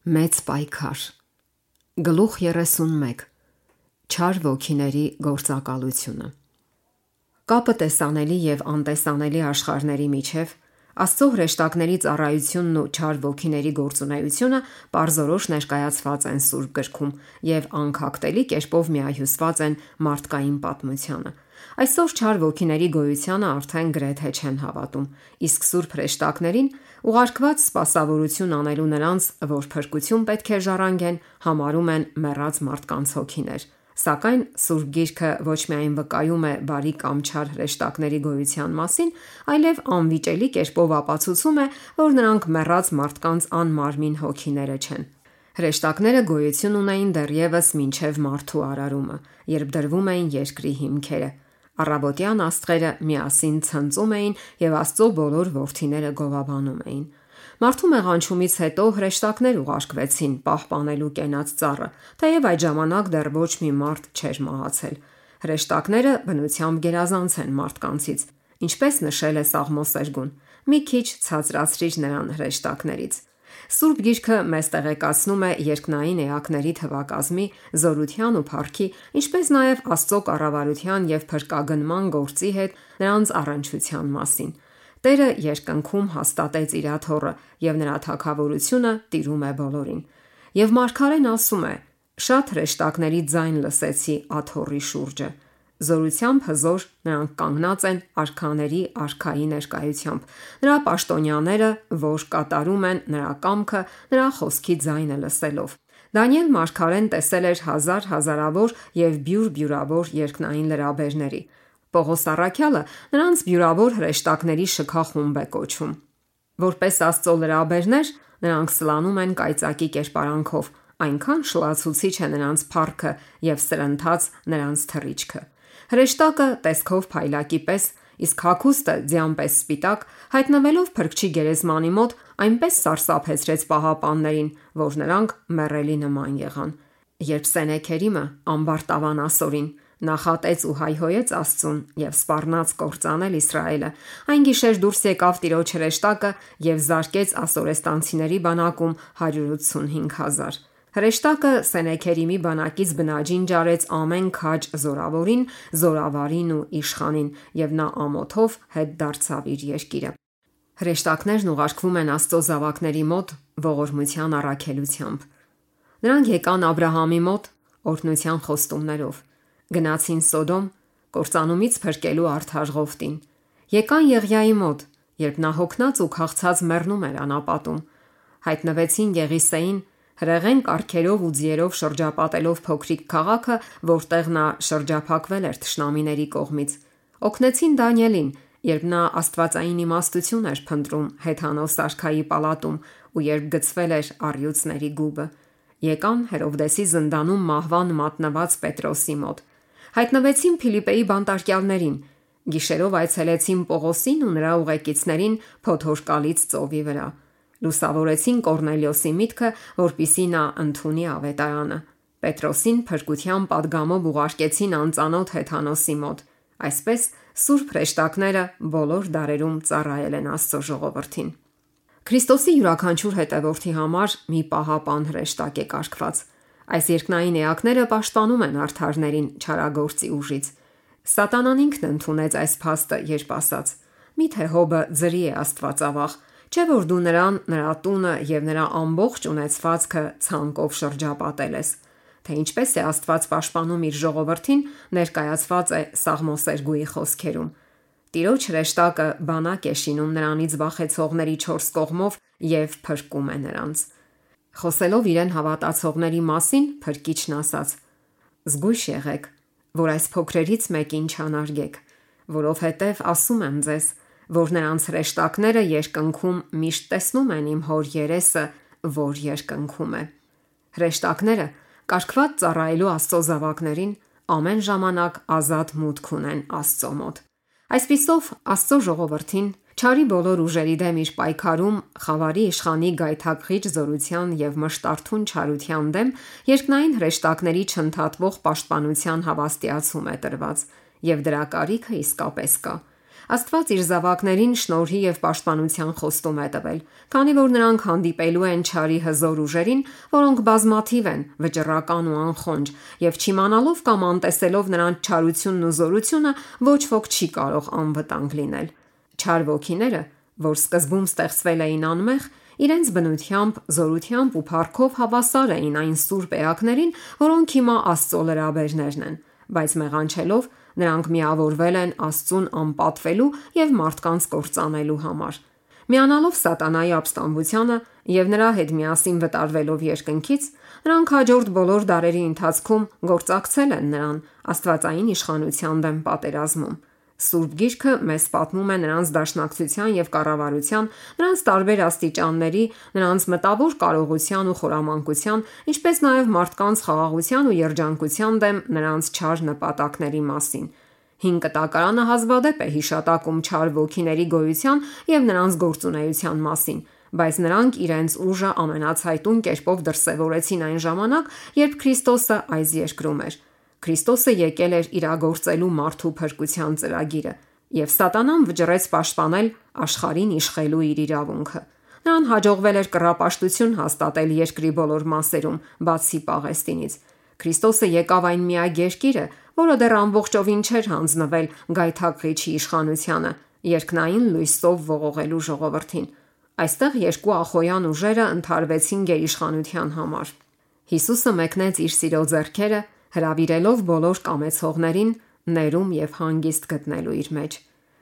Մեծ պայքար։ Գլուխ 31. Չար ոգիների գործակալությունը։ Կապը տեսանելի եւ անտեսանելի աշխարհների միջև Աստծո հրեշտակների ծառայությունն ու չար ոգիների գործունեությունը պարզորոշ ներկայացված են Սուրբ գրքում եւ անքակտելի կերպով միահյուսված են մարդկային պատմությանը։ Այսօր չար ոգիների գոյությանը արդեն գրեթե չեն հավատում, իսկ Սուրբ հրեշտակներին ուղարկված սպասավորություն անելու նրանց, որ փրկություն պետք է ժառանգեն, համարում են մեռած մարդկանց հոգիներ։ Սակայն Սուրբ Գիրքը ոչ միայն վկայում է բարի կամ չար հրեշտակների գոյության մասին, այլև անվիճելի կերպով ապացուցում է, որ նրանք մեռած մարդկանց անմարմին հոգիները չեն։ Հրեշտակները գոյություն ունեին դեռևս մինչև մարդու արարումը, երբ դրվում էին երկրի հիմքերը։ Առավոտյան աստղերը միասին ցնծում էին եւ Աստծո բոլոր որդիները գովաբանում էին։ Մարդու մեղանչումից հետո հրեշտակներ ուղարկվեցին պահպանելու կենաց ծառը, թեև այդ ժամանակ դեռ ոչ մի մարդ չէր մահացել։ Հրեշտակները բնությամբ գերազանց են մարդկանցից, ինչպես նշել է Սաղմոս 2. Մի քիչ ցածրացրիր նրան հրեշտակներից։ Սուրբ Գիրքը մեզ տեղեկացնում է երկնային էակների թվակազմի, զորության ու փառքի, ինչպես նաև Աստծո կառավարության եւ փրկագնման գործի հետ նրանց առնչության մասին։ Տերը երկնքում հաստատեց իր աթոռը եւ նրա թագավորությունը տիրում է բոլորին։ Եվ մարգարեն ասում է. «Շատ հրեշտակների ձայն լսեցի աթոռի շուրջը»։ Զորությամբ հզոր նրանք կանգնած են արքաների արքայի ներկայությամբ։ Նրա պաշտոնյաները, որ կատարում են նրա կամքը, նրա խոսքի ձայնը լսելով։ Դանիել մարգարեն տեսել էր հազարավոր եւ բյուրաբյուր երկնային լրաբերների։ Պողոս առաքյալը նրանց բյուրավոր հրեշտակների շքախումբ է կոչում։ Որպես Աստծո լրաբերներ, նրանք սլանում են կայծակի կերպարանքով, այնքան շլացուցիչ է նրանց փառքը եւ սրընթաց նրանց թռիչքը։ Հրեշտակը տեսքով փայլակի պես, իսկ հագուստը ձյան պես սպիտակ, հայտնվելով Փրկչի գերեզմանի մոտ, այնպես սարսափեցրեց պահապաններին, որ նրանք մեռելի նման եղան։ Երբ Սենեքերիմը ամբարտավան ասորին նախատեց ու հայհոյեց Աստծուն եւ սպառնաց կործանել Իսրայելը, այն գիշեր դուրս եկավ Տիրոջ հրեշտակը եւ զարկեց ասորեստանցիների բանակում 185,000։ Հրեշտակը Սենեքերիմի բանակից բնաջին ջարեց ամեն քաջ զորավորին, զորավարին ու իշխանին, եւ նա ամոթով հետ դարձավ իր երկիրը։ Հրեշտակներն ուղարկվում են Աստծո զավակների մոտ ողորմության առաքելությամբ։ Նրանք եկան Աբրահամի մոտ օրհնության խոստումներով, գնացին Սոդոմ կործանումից փրկելու արդար Ղովտին, եկան Եղիայի մոտ, երբ նա հոգնած ու քաղցած մեռնում էր անապատում, հայտնվեցին Եղիսեին հրեղեն կառքերով ու ձիերով շրջապատելով փոքրիկ քաղաքը, որտեղ նա շրջափակվել էր թշնամիների կողմից, օգնեցին Դանիելին, երբ նա աստվածային իմաստություն էր փնտրում հեթանոս արքայի պալատում ու երբ գցվել էր առյուծների գուբը, եկան Հերովդեսի զնդանում մահվան մատնված Պետրոսի մոտ, հայտնվեցին Փիլիպպեի բանտարկյալներին, գիշերով այցելեցին Պողոսին ու նրա ուղեկիցներին Փոթորկալից ծովի վրա, լուսավորեցին Կորնելիոսի միտքը, որպիսի նա ընդունի ավետարանը, Պետրոսին փրկության պատգամով ուղարկեցին անծանոթ հեթանոսի մոտ։ Այսպես Սուրբ հրեշտակները բոլոր դարերում ծառայել են Աստծո ժողովրդին։ Քրիստոսի յուրաքանչյուր հետևորդի համար մի պահապան հրեշտակ է կարգված։ Այս երկնային էակները պաշտպանում են արդարներին չարագործի ուժից։ Սատանան ինքն ընդունեց այս փաստը, երբ ասաց. «Միթե Հոբը ձրի է Աստվածավախ, չէ՞ որ դու նրան, նրա տունը եւ նրա ամբողջ ունեցվածքը ցանկով շրջապատել ես»։ Թե ինչպես է Աստված պաշտպանում իր ժողովրդին, ներկայացված է Սաղմոս 2-ի խոսքերում։ Տիրոջ հրեշտակը բանակ է շինում նրանից վախեցողների 4 կողմով եւ փրկում է նրանց։ Խոսելով իրեն հավատացողների մասին, Փրկիչն ասաց. «Զգույշ եղեք, որ այս փոքրերից մեկին չանարգեք, որովհետև ասում եմ ձեզ, որ նրանց հրեշտակները երկնքում միշտ տեսնում են իմ հոր երեսը, որ երկնքում է»։ Հրեշտակները կարգված ծառայելու Աստծո զավակներին ամեն ժամանակ ազատ մուտք ունեն Աստծո մոտ։ Այսպիսով Աստծո ժողովրդին չարի բոլոր ուժերի դեմ իր պայքարում խավարի իշխանի գայթակղիչ զորության եւ մշտարթուն չարության դեմ երկնային հրեշտակների չընդհատվող պաշտպանության հավաստիացում է տրված, եւ դրա կարիքը իսկապես կա։ Աստված իր զավակներին շնորհի եւ պաշտպանության խոստում է տվել, քանի որ նրանք հանդիպելու են չարի հզոր ուժերին, որոնք բազմաթիվ են, վճռական ու անխոնջ, եւ չիմանալով կամ անտեսելով նրանց չարությունն ու զորությունը, ոչ ոք չի կարող անվտանգ լինել։ Չար ոգիները, որ սկզբում ստեղծվել էին անմեղ, իրենց բնությամբ, զորությամբ ու փառքով հավասար էին այն սուրբ էակներին, որոնք հիմա Աստծո լրաբերներն են, բայց մեղանչելով նրանք միավորվել են Աստծուն անպատվելու եւ մարդկանց կործանելու համար։ Միանալով սատանայի ապստամբությանը եւ նրա հետ միասին վտարվելով երկնքից, նրանք հաջորդ բոլոր դարերի ընթացքում գործակցել են նրան աստվածային իշխանության դեմ պատերազմում։ Սուրբ Գիրքը մեզ պատմում է նրանց դաշնակցության եւ կառավարության, նրանց տարբեր աստիճանների, նրանց մտավոր կարողության ու խորամանկության, ինչպես նաեւ մարդկանց խաղաղության ու երջանկության դեմ նրանց չար նպատակների մասին։ Հին կտակարանը հազվադեպ է հիշատակում չար ոգիների գոյության եւ նրանց գործունեության մասին, բայց նրանք իրենց ուժը ամենացայտուն կերպով դրսևորեցին այն ժամանակ, երբ Քրիստոսը այս երկրում էր։ Քրիստոսը եկել էր իրագործելու մարդու փրկության ծրագիրը, եւ Սատանան վճռեց պաշտպանել աշխարհին իշխելու իր իրավունքը։ Նրան հաջողվել էր կռապաշտություն հաստատել երկրի բոլոր մասերում, բացի Պաղեստինից։ Քրիստոսը եկավ այն միակ երկիրը, որը դեռ ամբողջովին չէր հանձնվել գայթակղիչի իշխանությանը, երկնային լույսով ողողելու ժողովրդին։ Այստեղ երկու ախոյան ուժերը ընդհարվեցին գերիշխանության համար։ Հիսուսը մեկնեց իր սիրո ձեռքերը, հրավիրելով բոլոր կամեցողներին ներում եւ հանգիստ գտնելու իր մեջ։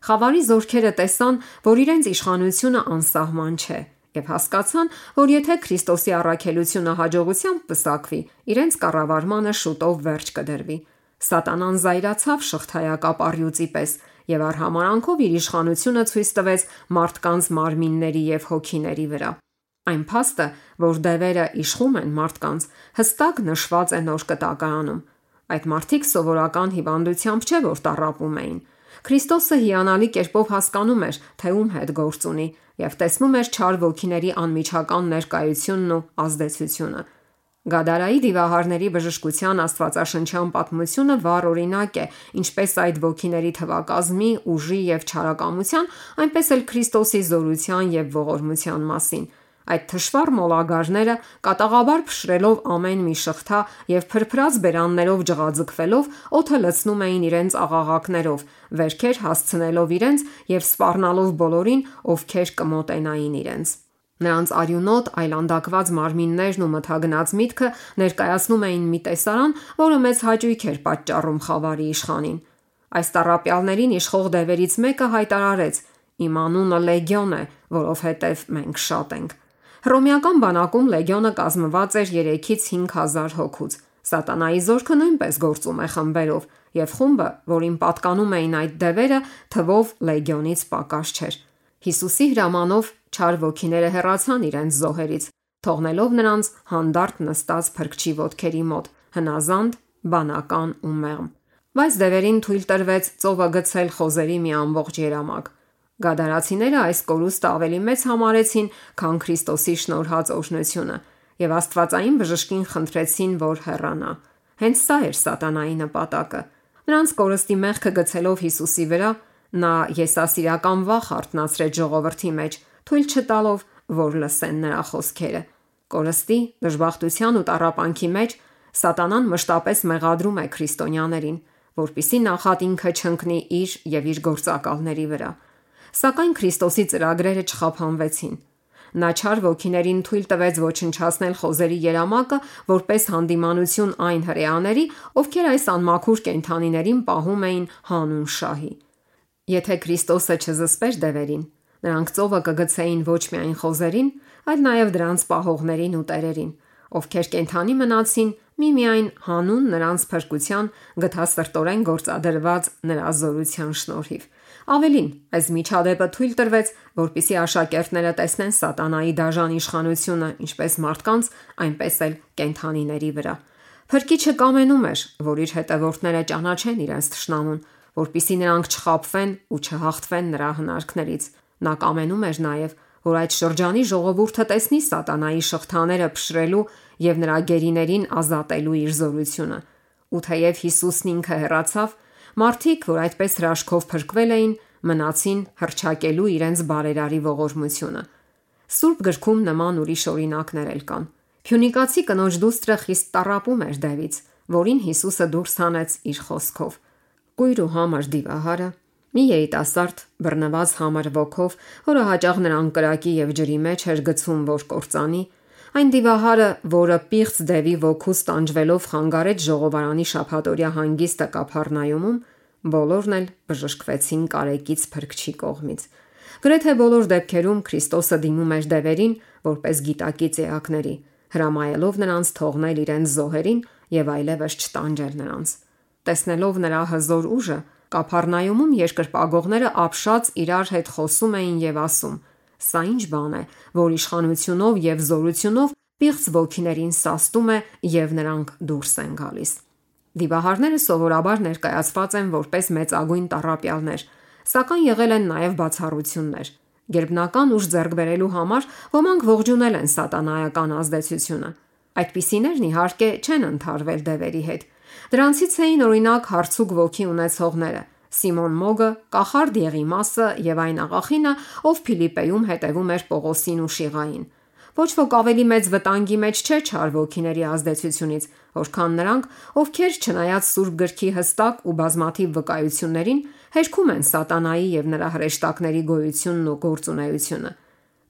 Խավարի զորքերը տեսան, որ իրենց իշխանությունը անսահման չէ, եւ հասկացան, որ եթե Քրիստոսի առաքելությունը հաջողությամբ պսակվի, իրենց կառավարմանը շուտով վերջ կդրվի։ Սատանան զայրացավ շղթայակապ առյուծի պես եւ արհամարանքով իր իշխանությունը ցույց տվեց մարդկանց մարմինների եւ հոգիների վրա։ Այն փաստը, որ դևերը իշխում են մարդկանց, հստակ նշված է Նոր Կտակարանում։ Այդ մարդիկ սովորական հիվանդությամբ չէ, որ տառապում էին։ Քրիստոսը հիանալի կերպով հասկանում էր, թե ում հետ գործ ունի, եւ տեսնում էր չար ոգիների անմիջական ներկայությունն ու ազդեցությունը։ Գադարայի դիվահարների բժշկության աստվածաշնչյան պատմությունը վառ օրինակ է, ինչպես այդ ոգիների թվակազմի, ուժի եւ չարակամության, այնպես էլ Քրիստոսի զորության եւ ողորմության մասին։ Այդ թշվառ մոլագարները կատաղաբար փշրելով ամեն մի շղթա եւ փրփրած բերաններով ջղաձգվելով օդը լցնում էին իրենց աղաղակներով, վերքեր հասցնելով իրենց եւ սպառնալով բոլորին, ովքեր կմոտենային իրենց։ Նրանց արյունոտ այլանդակված մարմիններն ու մթագնած միտքը ներկայացնում էին մի տեսարան, որը մեծ հաճույք էր պատճառում խավարի իշխանին։ Այս տառապյալներին իշխող դևերից մեկը հայտարարեց. «Իմ անունը Լեգիոն է, որովհետև մենք շատ ենք»։ Հռոմեական բանակում լեգիոնը կազմված էր 3-ից 5000 հոգուց։ Սատանայի զորքը նույնպես գործում է խմբերով, եւ խումբը, որին պատկանում էին այդ դևերը, թվով լեգիոնից պակաս չէր։ Հիսուսի հրամանով չար ոգիները հեռացան իրենց զոհերից, թողնելով նրանց հանդարտ նստած փրկչի ոտքերի մոտ, հնազանդ, բանական ու մեղմ։ Բայց դևերին թույլ տրվեց ծովը գցել խոզերի մի ամբողջ երամակ։ Գադարացիները այս կորուստը ավելի մեծ համարեցին, քան Քրիստոսի շնորհած օրհնությունը, եւ Աստվածային բժշկին խնդրեցին, որ հեռանա։ Հենց սա էր սատանայի նպատակը։ Նրանց կորստի մեղքը գցելով Հիսուսի վրա, նա եսասիրական վախ արթնացրեց ժողովրդի մեջ, թույլ չտալով, որ լսեն նրա խոսքերը։ Կորստի, դժբախտության ու տառապանքի մեջ Սատանան մշտապես մեղադրում է քրիստոնյաներին, որպիսի նախատինքը չընկնի իր եւ իր գործակալների վրա։ Սակայն Քրիստոսի ծրագրերը չխափանվեցին։ Նա չար ոգիներին թույլ տվեց ոչնչացնել խոզերի երամակը, որպես հանդիմանություն այն հրեաների, ովքեր այս անմաքուր կենդանիներին պահում էին հանուն շահի։ Եթե Քրիստոսը չզսպեր դևերին, նրանք ծովը կգցեին ոչ միայն խոզերին, այլ նաև դրանց պահողներին ու տերերին, ովքեր կենդանի մնացին միմիայն հանուն նրանց փրկության գթասրտորեն գործադրված նրա զորության շնորհիվ։ Ավելին, այս միջադեպը թույլ տրվեց, որպիսի աշակերտները տեսնեն սատանայի դաժան իշխանությունը ինչպես մարդկանց, այնպես էլ կենդանիների վրա։ Փրկիչը կամենում էր, որ իր հետևորդները ճանաչեն իրենց թշնամուն, որպիսի նրանք չխաբվեն ու չհաղթվեն նրա հնարքներից։ Նա կամենում էր նաև, որ այդ շրջանի ժողովուրդը տեսնի սատանայի շղթաները փշրելու եւ նրա գերիներին ազատելու իր զորությունը։ Ու թեև Հիսուսն ինքը հեռացավ, մարդիկ, որ այդպես հրաշքով փրկվել էին, մնացին հռչակելու իրենց բարերարի ողորմությունը։ Սուրբ գրքում նման ուրիշ օրինակներ էլ կան։ Փյունիկացի կնոջ դուստրը խիստ տառապում էր դևից, որին Հիսուսը դուրս հանեց իր խոսքով։ Կույր ու համր դիվահարը, մի երիտասարդ բռնված համր ոգով, որը հաճախ նրան կրակի եւ ջրի մեջ էր գցում, որ կործանի, այն դիվահարը, որը պիղծ դևի ոգուց տանջվելով խանգարեց ժողովարանի շաբաթօրյա հանգիստը Կափառնայումում, բոլորն էլ բժշկվեցին կարեկից Փրկչի կողմից։ Գրեթե բոլոր դեպքերում Քրիստոսը դիմում էր դևերին որպես գիտակից էակների, հրամայելով նրանց թողնել իրենց զոհերին եւ այլևս չտանջել նրանց։ Տեսնելով նրա հզոր ուժը, Կափառնայումում երկրպագողները ապշած իրար հետ խոսում էին եւ ասում. «Սա ինչ բան է, որ իշխանությունով եւ զորությունով պիղծ ոգիներին սաստում է եւ նրանք դուրս են գալիս»։ Դիվահարները սովորաբար ներկայացված են որպես մեծագույն տառապյալներ, սակայն եղել են նաև բացառություններ։ Գերբնական ուժ ձեռք բերելու համար ոմանք ողջունել են սատանայական ազդեցությունը։ Այդպիսիներն իհարկե չեն ընդհարվել դևերի հետ։ Դրանցից էին օրինակ հարցուկ ոգի ունեցողները՝ Սիմոն Մոգը, կախարդ Եղիմասը եւ այն աղախինը, ով Փիլիպպեում հետևում էր Պողոսին ու Շիղային։ Ոչ ոք ավելի մեծ վտանգի մեջ չէր չար ոգիների ազդեցությունից, որքան նրանք, ովքեր չնայած Սուրբ գրքի հստակ ու բազմաթիվ վկայություններին, հերքում են սատանայի եւ նրա հրեշտակների գոյությունն ու գործունեությունը։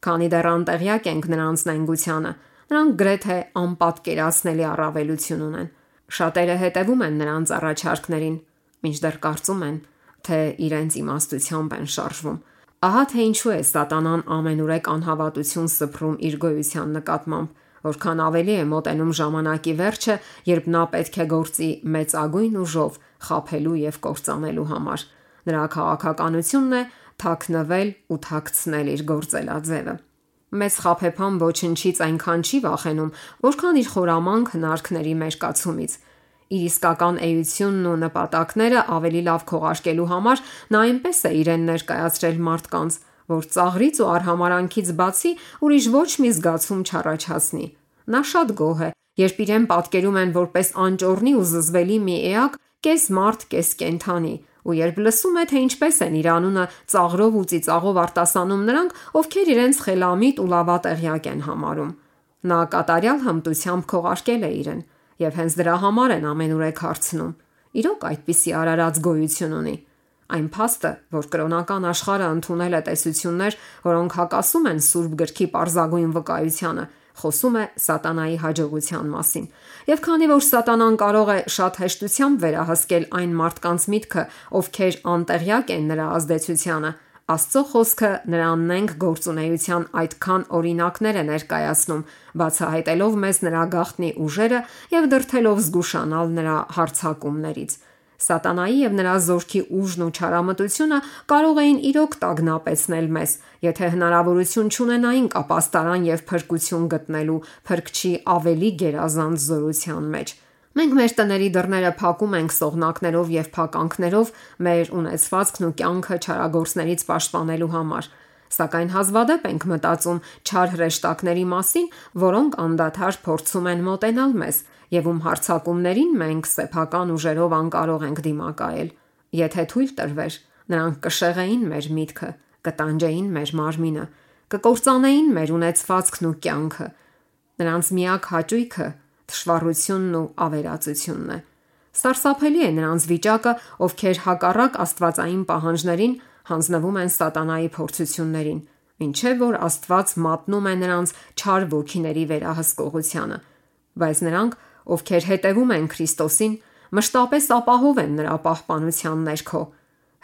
Քանի դեռ անտեղյակ ենք նրանց նենգությանը, նրանք գրեթե անպատկերացնելի առավելություն ունեն։ Շատերը հետևում են նրանց առաջարկներին, մինչդեռ կարծում են, թե իրենց իմաստությամբ են շարժվում։ Ահա թե ինչու է սատանան ամենուրեք անհավատություն սփռում իր գոյության նկատմամբ, որքան ավելի է մոտենում ժամանակի վերջը, երբ նա պետք է գործի մեծագույն ուժով խաբելու եւ կործանելու համար։ Նրա քաղաքականությունն է թաքնվել ու թաքցնել իր գործելաձևը։ Մեծ խաբեբան ոչնչից այնքան չի վախենում, որքան իր խորամանկ հնարքների մերկացումից։ Իր իսկական էությունն ու նպատակները ավելի լավ քողարկելու համար նա այնպես է իրեն ներկայացրել մարդկանց, որ ծաղրից ու արհամարանքից բացի ուրիշ ոչ մի զգացում չառաջացնի։ Նա շատ գոհ է, երբ իրեն պատկերում են որպես անճոռնի ու զզվելի մի էակ, կես մարդ, կես կենդանի, ու երբ լսում է, թե ինչպես են իր անունը ծաղրով ու ծիծաղով արտասանում նրանք, ովքեր իրենց խելամիտ ու լավատեղյակ են համարում։ Նա կատարյալ հմտությամբ քողարկել է իրեն, եւ հենց դրա համար են ամենուրեք հարցնում։ Իրոք այդպիսի արարած գոյություն ունի։ Այն փաստը, որ կրոնական աշխարհը ընդունել է տեսություններ, որոնք հակասում են Սուրբ գրքի պարզագույն վկայությանը, խոսում է սատանայի հաջողության մասին։ Եվ քանի որ սատանան կարող է շատ հեշտությամբ վերահսկել այն մարդկանց միտքը, ովքեր անտեղյակ են նրա ազդեցությանը, Աստծո խոսքը նրան նենգ գործունեության այդքան օրինակներ է ներկայացնում, բացահայտելով մեզ նրա գաղտնի ուժերը եւ դրդելով զգուշանալ նրա հարձակումներից։ Սատանայի եւ նրա զորքի ուժն ու չարամտությունը կարող էին իրոք տագնապեցնել մեզ, եթե հնարավորություն չունենային ապաստարան եւ փրկություն գտնելու Փրկչի ավելի գերազանց զորության մեջ։ Մենք մեր տների դռները փակում ենք սողնակներով եւ փականքներով մեր ունեցվածքն ու կյանքը չարագործներից պաշտպանելու համար, սակայն հազվադեպ ենք մտածում չար հրեշտակների մասին, որոնք անդադար փորձում են մոտենալ մեզ եւ ում հարձակումներին մենք սեփական ուժերով անկարող ենք դիմակայել։ Եթե թույլ տրվեր, նրանք կշեղեին մեր միտքը, կտանջեին մեր մարմինը, կկործանեին մեր ունեցվածքն ու կյանքը։ Նրանց միակ հաճույքը թշվառությունն ու ավերածությունն է։ Սարսափելի է նրանց վիճակը, ովքեր հակառակ աստվածային պահանջներին հանձնվում են սատանայի փորձություններին, ինչեւ որ Աստված մատնում է նրանց չար ոգիների վերահսկողությանը։ Բայց նրանք, ովքեր հետևում են Քրիստոսին, մշտապես ապահով են նրա պահպանության ներքո։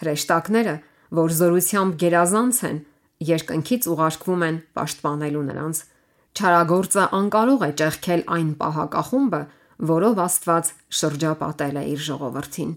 Հրեշտակները, որ զորությամբ գերազանց են, երկնքից ուղարկվում են պաշտպանելու նրանց։ Չարագործը անկարող է ճեղքել այն պահակախումբը, որով Աստված շրջապատել է իր ժողովրդին։